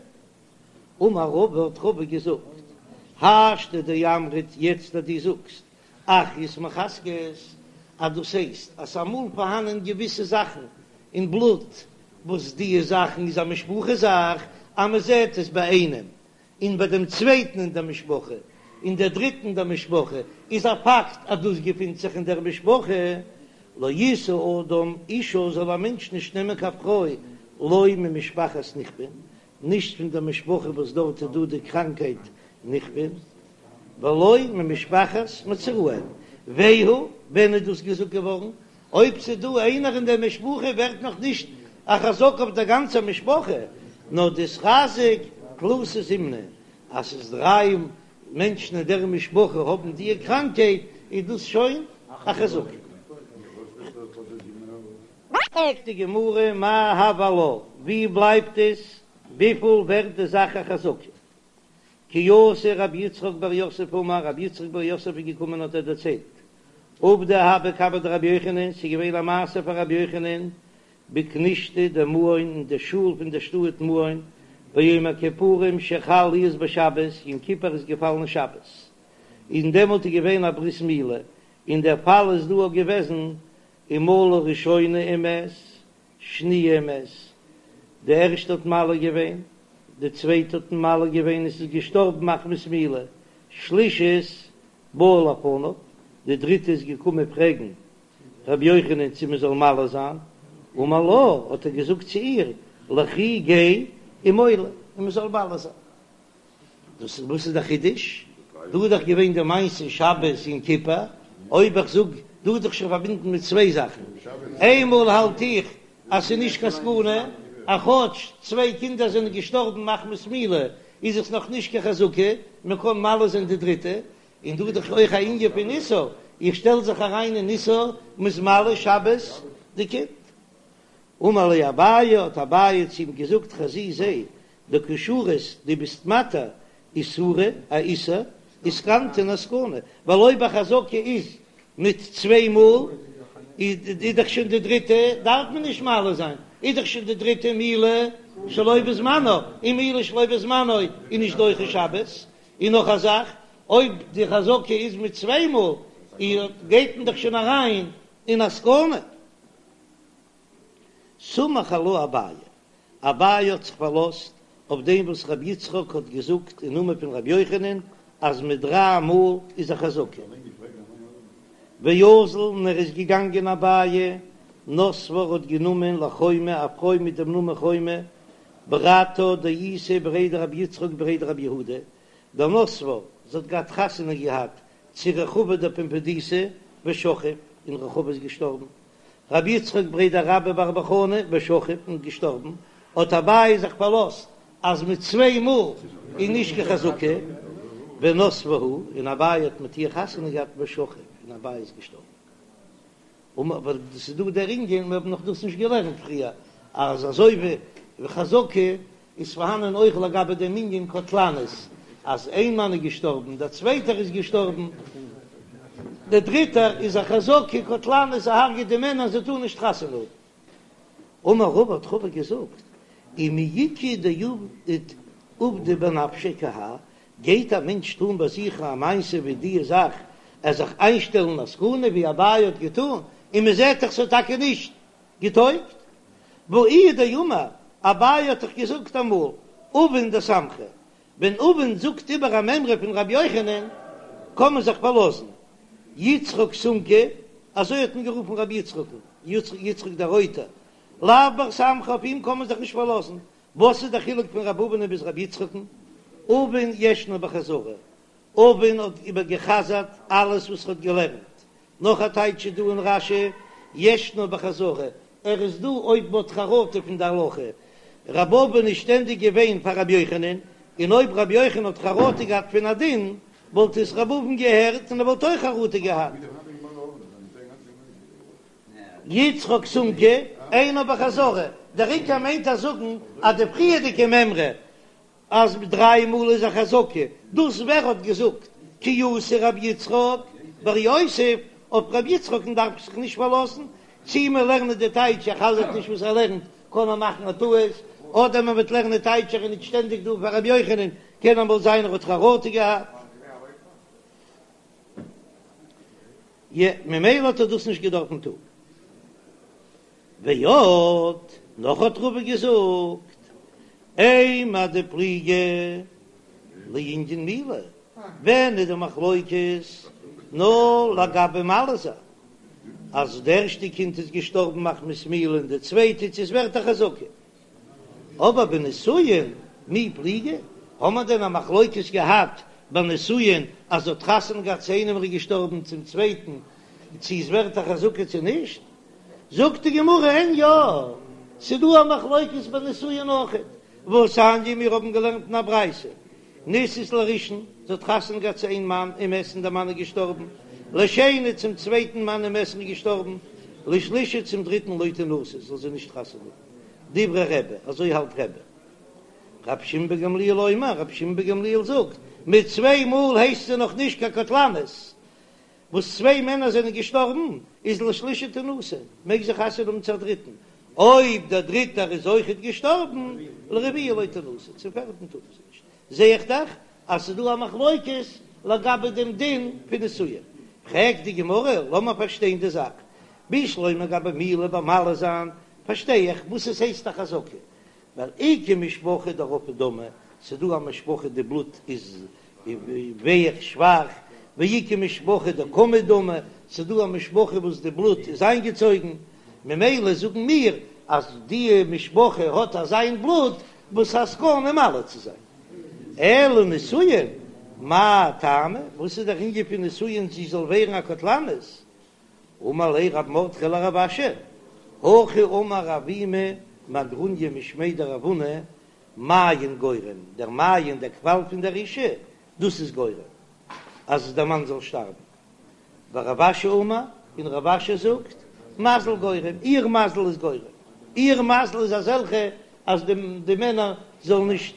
אמר רבא האט רבא געזאגט, השתא דאמרת יעצט אז דו זאגסט אחיות מחזקות אז דאס הייסט אז ס'אמאל פארהאנען געוויסע זאכן אין בלוט וואס דיע זאכן איז א משפחה זאך אז מ'זעט עס ביי איינעם און ביי דעם צווייטן אין דער משפחה, און דער דריטן אין דער משפחה, איז א פאקט אז דאס געפינט זיך אין דער משפחה. לא ישא אדם אישה זאל א מענטש נישט נעמען קיין פרוי לא ממשפחת נכפין, נישט פון דער משפחה וואס דארט איז דא די קראנקייט נכפין, ולא ממשפחת מצורעים. והוא, ווען איז דאס געזאגט געווארן? אויב ס'איז דא איינער אין דער משפחה ווערט נאך נישט א חזקה אויף דער גאנצער משפחה, נאר דאיתחזק תלתא זימני, אז ס'איז דריי מענטשן אין דער משפחה האבן דיע קראנקייט, איז דאס שוין א חזקה. פרעגט די גמרא מאי הוי עלה, ווי בלייבט עס, וויפיל ווערט די זאך א חזקה? כי אתא רב יצחק בר יוסף אמר, רב יצחק בר יוסף איז געקומען האט ער דערציילט, עובדא הוה קמיה דרבי יוחנן, ס'איז געווען א מעשה פאר רבי יוחנן בכנישתא דמעון אין די שול פון די שטאט מעון, ביום הכיפורים שחל להיות בשבת, יום כיפור איז געפאלן שבת, און דעמאלט איז געווען א ברית מילה, און דער פאל איז דא געוועזן ומלה ראשונה ומת, שניה ומת, די ערשטע האט מל געווען, די צווייטע האט מל געווען און ס'איז געשטארבן מחמת מילה, שלישית באה לפניו, די דריטע איז געקומען פרעגן רבי יוחנן צו מען זאל מל זיין, אמר לה, האט ער געזאגט צו איר, לכי גיי ומולי, און מען זאל מל זיין. דאס איז וואס איז דער חידוש? דא איז דאך געווען די מעשה שבת יום כיפור, אויב איך זאג דא איז דאך שוין פארבינדן מיט צוויי זאכן, איינמאל האלט איך אז ס'איז נישט קיין סכנה, אז כאטש צוויי קינדער זענען געשטארבן מחמת מילה איז עס נאך נישט קיין חזקה, מען קען מל זיין די דריטע, און דא איז דאך אויך א ענין פון איסור, איך שטעל זיך אריין אין איסור, מ'איז מל שבת די קינד. אמר ליה אביי, האט אביי צו אים געזאגט, חזי זע, דקא שרית, דו ביסט מתיר איסורא, א איסור, וסכנתא און א סכנה, ווייל אויב א חזקה איז מיט צוויי מאל, איז דאך שוין די דריטע, דארף מען נישט מל זיין, איז דאך שוין די דריטע מילה שלא בזמנה, און מילה שלא בזמנה איז נישט דוחה שבת, און נאך א זאך, אויב די חזקה איז מיט צוויי מאל, גייט מען דאך שוין אריין אין א סכנה. סמך עלה אביי, אביי האט זיך פארלאזט אויף דעם וואס רבי יצחק האט געזאגט אין נאמען פון רבי יוחנן אז מיט דריי מאל איז א חזקה. ואזל און ער איז געגאנגען אביי. נסבה האט גענומען לחומא א פרוי מיט דעם נאמען חומא ברתה דאיתיה בריה דרבי יצחק בריה דרבי יהודה דנסבה, זי האט געהאט חתונה געהאט צו רחבא דפומבדיתא ושכיב, און רחבא איז געשטארבן, רבי יצחק בריה דרבה בר בר חנה ושכיב און געשטארבן, האט אביי זיך פארלאזט אז מיט צוויי מאל איז נישט קיין חזקה, ונסבה הוא, און אביי האט מיט איר חתונה געהאט ושכיב, און אביי איז געשטארבן. אבער ס'איז דא דער ענין, מיר האבן נאך דאס נישט געלערנט פריער, אז אזוי ווי חזקה איז פארהאנען אויך לגבי דעם ענין קטלנית, אז איין מאן איז געשטארבן, דער צווייטער איז געשטארבן, דער דריטער איז א חזקה קטלנית, ער הרג'עט די מענער זיי טארן נישט חתונה האבן. אמר רבא האט רבא געזאגט, ומי איכא דעבדא בנפשיה כי האי, גייט א מענטש טון ביי זיך א מעשה ווי די זאך, ער זיך איינשטעלן א סכנה ווי אביי האט געטון, און מען זעט דאך ס'האט טאקע נישט געטויגט. והא איהו דאמר, אביי האט דאך געזאגט אמאל, אבין דסמכא, ווען אבין זאגט איבער א מימרא פון רבי יוחנן, קען מען זיך פארלאזן. יצחק סומקא, אזוי האט מען גערופן רבי יצחק'ן, יצחק דער רויטער, לאו בר סמכא, אויף אים קען מען זיך נישט פארלאזן. וואס איז דער חילוק פון רבי אבין ביז רבי יצחק'ן? אבין ישנו בחזרה, אבין האט איבערגעחזרט אלעס וואס ער האט געלערנט, נאך א טייטש איז דא אין רש"י, ישנו בחזרה, ער איז דא אויב מ'האט חרטה פון די הלכה, רבי אבין איז שטענדיג געווען פאר רבי יוחנן, און אויב רבי יוחנן האט חרטה געהאט פון א דין, וואלט עס רבי אבין געהערט און ער וואלט אויך חרטה געהאט. יצחק סומקא, אינו בחזרה, דער עיקר מיינט ער זאגן אז די פריערדיגע מימרא אז דריי מאל איז א חזקה, דאס ווער האט געזאגט כי אתא רבי יצחק בר יוסף, אויף רבי יצחק'ן דארף איך זיך נישט פארלאזן, צי מיר לערנען די טייטש ער חזר'ט נישט וואס ער לערנט קען ער מאכן א טעות, אדער מען וועט לערנען טייטש ער איז נישט שטענדיג דא פאר רבי יוחנן, קען אמאל זיין ער האט חרטה געהאט. י, ממילא האט ער דאס נישט געדארפן טון. ועוד, נאך האט רבא געזאגט, אימר דפליגי לענין מילה, ווען איז די מחלוקת נאר לגבי מל זיין, אז די ערשטע קינד איז געשטארבן מחמת מילה און די צווייטע צו עס ווערט א חזקה, אבער בנישואין מי פליגי, האט מען דען א מחלוקת געהאט ביי נישואין אז זי האט חתונה געהאט צו איינעם ער איז געשטארבן צום צווייטן צו עס ווערט א חזקה צו נישט? זאגט די גמרא אין יא, ס'דא א מחלוקת ביי נישואין אויכעט, והתניא מיר האבן געלערנט אין א ברייתא, נישאת לראשון, זי האט חתונה געהאט צו איין מאן ומת און דער מאן איז געשטארבן, לשני צום צווייטן מאן ומת און איז געשטארבן, לשלישי צום דריטן לא תנשא, זאל זי נישט חתונה האבן. דברי רבי, אזוי האלט רבי. רבי שמעון בן גמליאל אומר, רבי שמעון בן גמליאל זאגט, מיט צוויי מאל הייסט זי נאך נישט קיין קטלנית, וואס צוויי מענער זענען געשטארבן, איז לשלישי תנשא, מעג זי חתונה האבן צו א דריטן, אויב דער דריטער איז אויכעט געשטארבן, לרביעי לא תנשא, צום פערטן טאר זי נישט. זע איך דאך אז ס'איז דא א מחלוקת לגבי דעם דין פון נישואין. פרעגט די גמרא, לאמיר פארשטיין די זאך, בשלמא גבי מילה ביי מל זיין, פארשטיי איך וואס עס הייסט א חזקה, ווייל איכא משפחה דרפי דמא, ס'איז דא א משפחה די בלוט איז ווייך שוואך, ואיכא משפחה דקמיד דמא, ס'איז דא א משפחה וואס די בלוט איז איינגעצויגן, ממילא זאגן מיר אז די משפחה האט אזיין בלוט וואס א סכנה מל צו זיין. אלא נישואין, מאי טעמא, וואס איז דער ענין פון נישואין זי זאל ווערן א קטלנית? אמר ליה רב מרדכי לרב אשי, הכי אמר אבימי מהגרוניא משמיה דרב הונא, מעיין גורם, דער מעיין, דער קוואל פון דער אישה, דאס איז גורם אז דער מאן זאל שטארבן. ורב אשי אמר, און רב אשי זאגט, מזל גורם, איר מזל איז גורם, איר מזל איז אזעלכע אז די מענער זאלן נישט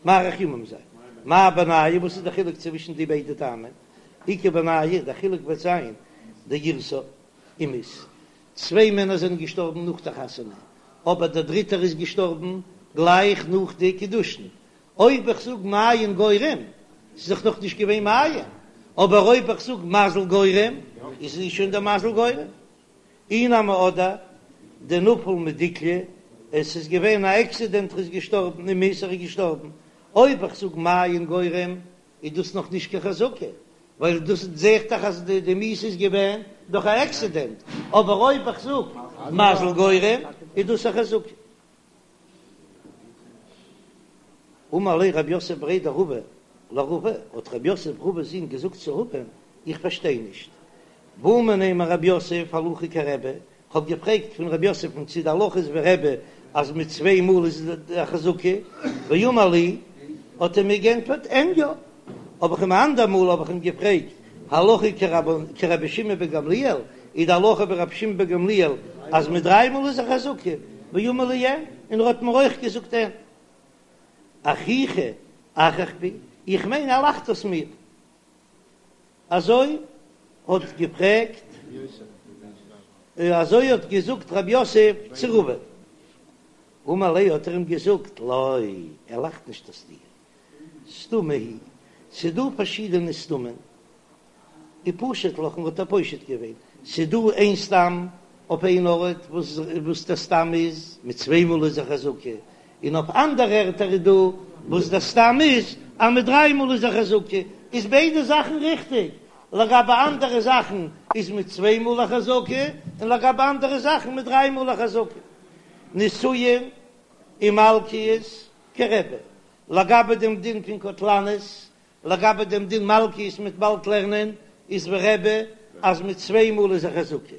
מאריך ימים זיין. מאי בינייהו, וואס איז דער חילוק צווישן די ביידע טעמים? איכא בינייהו, דער חילוק וועט זיין דאירסה ומית. צוויי מענער זענען געשטארבן נאך דער חתונה, אבער דער דריטער איז געשטארבן גלייך נאך די קידושין. אויב איך זאג מעיין גורם, ס'איז דאך נאך נישט געווען מעיין, אבער אויב איך זאג מזל גורם, איז שוין דער מזל גורם. אי נמי אדער דנפל מדיקלא, עס איז געווען א עקסידענט ער איז געשטארבן ומית ער איז געשטארבן, אויב איך זאג מעיין גורם איז דאס נאך נישט קיין חזקה, ווייל דאס זעהט דאך אז די מיתה איז געווען דורך א עקסידענט, אבער אויב איך זאג. מזל גורם, איז דאס א חזקה. אמר ליה רב יוסף בריה דרבא לרבא, האט רב יוסף רבא'ס זון געזאגט צו רבא, איך פארשטיי נישט, בעא מיניה מרב יוסף הלכה כרבי, כ'האב געפרעגט פון רב יוסף'ן צי די הלכה איז ווי רבי אז מיט צוויי מאל איז א חזקה, ואמר לי, האט ער מיר גענטפערט אין יא, האב איך אים א אנדער מאל האב איך אים געפרעגט הלכה כרבי שמעון בן גמליאל, איז די הלכה ווי רבי שמעון בן גמליאל אז מיט דריי מאל איז א חזקה, ואמר לי אין, און ער האט מיר אויך געזאגט אין. אחוכי אחיך בי, איך מיין ער לאכט אויס מיר. אזוי האט געפרעגט, אזוי האט געזאגט רב יוסף צו רבא. אמר ליה האט ער אים געזאגט, לא, ער לאכט נישט אויס דיר, סתמא היא, ס'דא פארשידענע סתמין, ופשט לך און האט ער פושט געווען, ס'דא איין סתם אויף איין ארט וואס וואס דער סתם איז מיט צוויי מאל איז א חזקה, און אויף אנדערע ערטער איז דא וואס דער סתם איז אז מיט דריי מאל איז א חזקה, איז ביידע זאכן ריכטיג, לגבי אנדערע זאכן איז מיט צוויי מאל א חזקה, און לגבי אנדערע זאכן מיט דריי מאל א חזקה. נישואין ומלקיות כרבי, לגבי דעם דין פון קטלנית, לגבי דעם דין מלקיות מ'וועט באלד לערנען, איז ווי רבי אז מיט צוויי מאל איז א חזקה,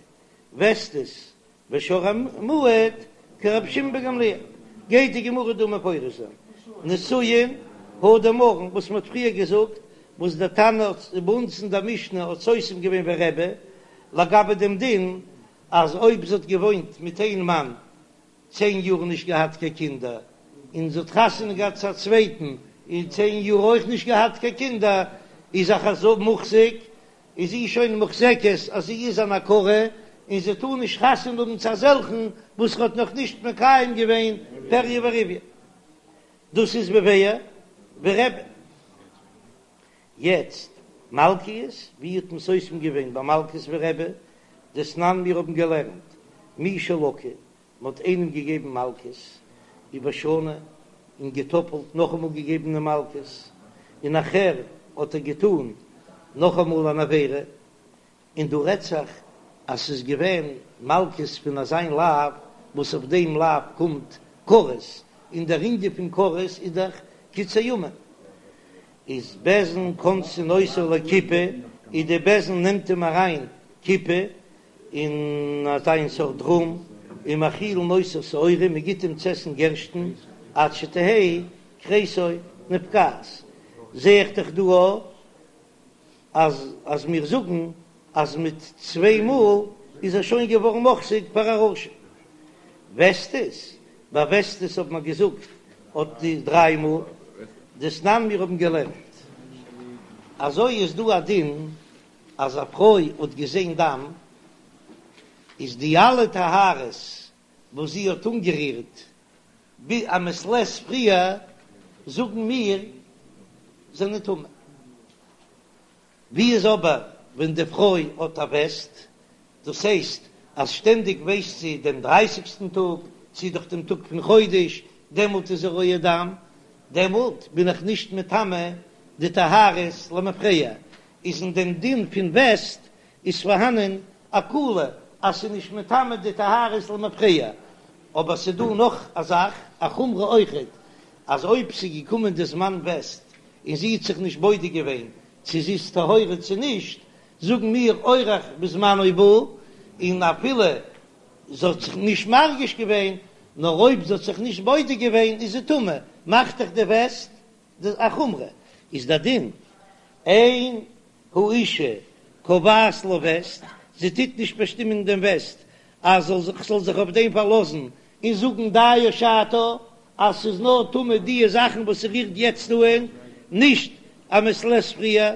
וסתות ושור המועד כרבי שמעון בן גמליאל, גייט די גמרא דא מפרש זיין נישואין הא דאמרן וואס מען האט פריער געזאגט, וואס דער תנא האט ביי אונז אין דער משנה האט סותם געווען ווי רבי, לגבי דעם דין אז אויב זי האט געוואוינט מיט איין מאן צען יאר נישט געהאט קיין קינדער, און זי האט חתונה געהאט צו א צווייטן און צען יאר אויך נישט געהאט קיין קינדער, איז א חזקה מוחזק, איז זי שוין מוחזקת אז זי איז אן עקרה, און זי טאר נישט חתונה האבן צו אזעלכן וואס האט נאך נישט מקיים געווען פריה ורביה. דאס איז ווי ווי רבי. יעצט מלקיות, ווי האט מען סותם געווען ביי מלקות ווי רבי? דתנן מיר האבן געלערנט מי שלקה, מען האט איינעם געגעבן מלקות ובשנה און געטאפלט נאכאמאל געגעבן די מלקות, און נאכער האט ער געטאן נאכאמאל אן עבירה, און דא רעדט זיך אז ס'איז געווען מלקות פון אזיין לאו וואס אויף דעם לאו קומט כרת, און דער ענין פון כרת איז דאך קיצור ימים, איז בית דין כונסין אותו לכיפה, איז די בית דין נעמט אים אריין כיפה אין אזיין סארט רום, ומאכילין אותו שעורים, מען גיט אים צו עסן גערשטן עד שתהא כריסו נפקעת, זע איך דאך דא אז אז מיר זאגן אז מיט צוויי מאל איז ער שוין געווארן מוחזק פאר א רשע. וסתות, ביי וסתות האט מען געזאגט אט די דריי מאל, דתנן מיר האבן געלערנט אזוי איז דא א דין אז א פרוי האט געזען דם איז די אלע טהרות וואס זי האט אנגערירט ביז א מעת לעת פריער זאגן מיר זענען טמא. ווי איז אבער ווען די פרוי האט א וסת, דאס הייסט אז שטענדיג ווייסט זי דעם דרייסיגסטן טאג, צי דורך דעם טאג פון חודש, דעמאלט איז זי רואה דם, דעמאלט בין איך נישט מטמא די טהרות למפרע, איז אין דעם דין פון וסת איז פארהאנען א קולא אז ס'איז נישט מטמא די טהרות למפרע, אבער ס'איז דא נאך א זאך, א חומרא אויכעט, אז אויב ס'איז געקומען די זמן וסת און זי האט זיך נישט בודק געווען צו זי איז טהורה צו נישט, זאגן מיר אורח בזמנו בא, און אפילו זי האט זיך נישט מרגיש געווען, נאר אויב זי האט זיך נישט בודק געווען איז זי טמא, מאכט דאך די וסת א חומרא, איז די דין אין האשה קובעת לה וסת, זי טוט נישט באשטימען דעם וסת אז זאל זיך זאל זיך אויף דעם פארלאזן און זאגן דיה שעתה אז ס'איז נאר טמא דיע זאכן וואס ס'רירט יעצט אהן, נישט א מעת לעת פריער,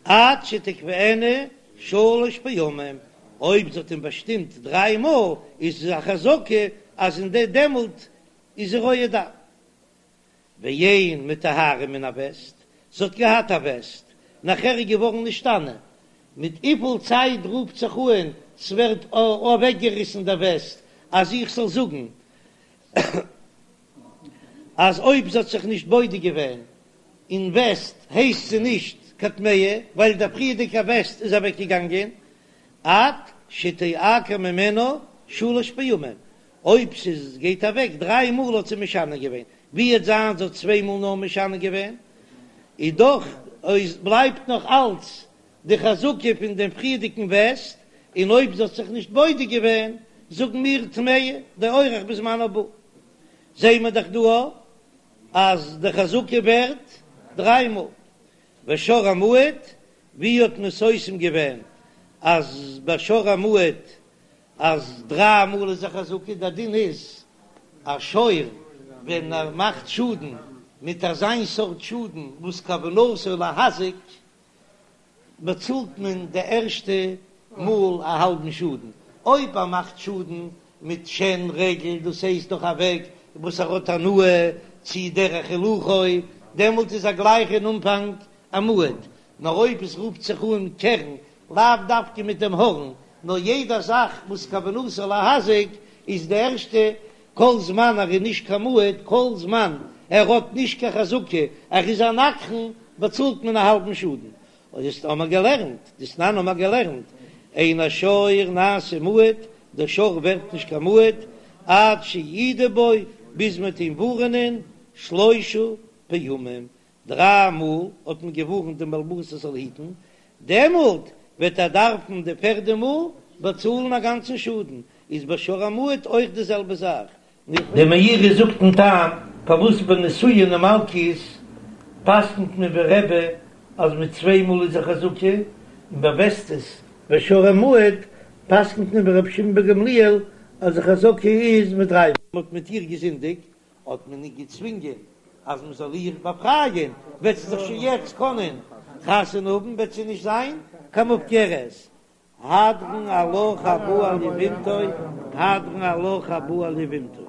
עד שתקבענה שלש פעמים, אויב זי האט אים באשטימט דריי מאל איז עס א חזקה אז אין די דעמאלט איז זי רואה דם. ואין מטהרה מן הווסת, זי האט געהאט א וסת, נאכער איז געווארן נשתנה, מיט וויפיל צייט רופט זיך אהן ס'ווערט אוועקגעריסן דער וסת, אז איך זאל זאגן אז אויב זי האט זיך נישט בודק געווען אין וסת הייסט זי נישט קיין טמאה ווייל דער פריערדיגע וסת איז אוועקגעגאנגען עד. שתעקר ממנה שלש פעמים, אויב ס'איז גייט אוועק דריי מאל האט זי משנה געווען, ווי וועט זיין זי האט צוויי מאל נאר משנה געווען, איז דאך אויס בלייבט נאך אלץ די חזקה פון דעם פריערדיגן וסת, און אויב זי האט זיך נישט בודק געווען, זאגן מיר טמאה דאורח בזמן הבא. זעהן מיר דאך דא אז די חזקה ווערט דריי מאל. ושור המועד, ווי האט מען סותם געווען אז ביי שור המועד אז דריי מאל איז א חזקה? דער דין איז א שור ווען ער מאכט שאדן מיט אזיין סארט שאדן וואס כוונתו להזיק, באצאלט מען די ערשטע מאל א האלבן שאדן, אויב ער מאכט שאדן מיט שן רגל, דאס הייסט דורך א וועג וואס ער האט הנאה צי דרך הילוכו, דעמאלט איז ער גלייך אין אנפאנג א מועד, נאר אויב עס רופט זיך אן קרן, לאו דווקא מיט דעם הארן, נאר יעדע זאך וואס כוונתו להזיק איז די ערשטע, כל זמן ער איז נישט קיין מועד, כל זמן ער האט נישט קיין חזקה, ער איז א נגחן, באצאלט מען א האלבן שאדן. דאס האמער געלערנט, דתנן האמער געלערנט, אין השור נעשה מועד, דער שור ווערט נישט קיין מועד, עד שיעידו בו, ביז מען וועט אים ווארענען שלשה פעמים, דריי מאל האט מען געווארנט דעם בעל הבית ער זאל היטן, דעמאלט וועט ער דארפן די פערדע מאל באצאלן א גאנצן שאדן, איז ביי שור המועד אויך די זעלבע זאך. דער מאירי זאגט דעם טעם פארוואס ביי נישואין און מלקות פסק'נט מען ווי רבי אז מיט צוויי מאל איז א חזקה, און ביי וסתות ושור המועד פסק'נט מען ווי רבי שמעון בן גמליאל אז די חזקה איז מיט דריי מאל. מען האט מיט איר געזינדיגט, האט מען איר געצווינגען אז מען זאל איר באפרייען, וועט זי זיך שוין יעצט קענען חתונה האבן, וועט זי נישט זיין קיין מופקרת. הדרן עלך הבא על יבמתו, הדרן עלך הבא על יבמתו.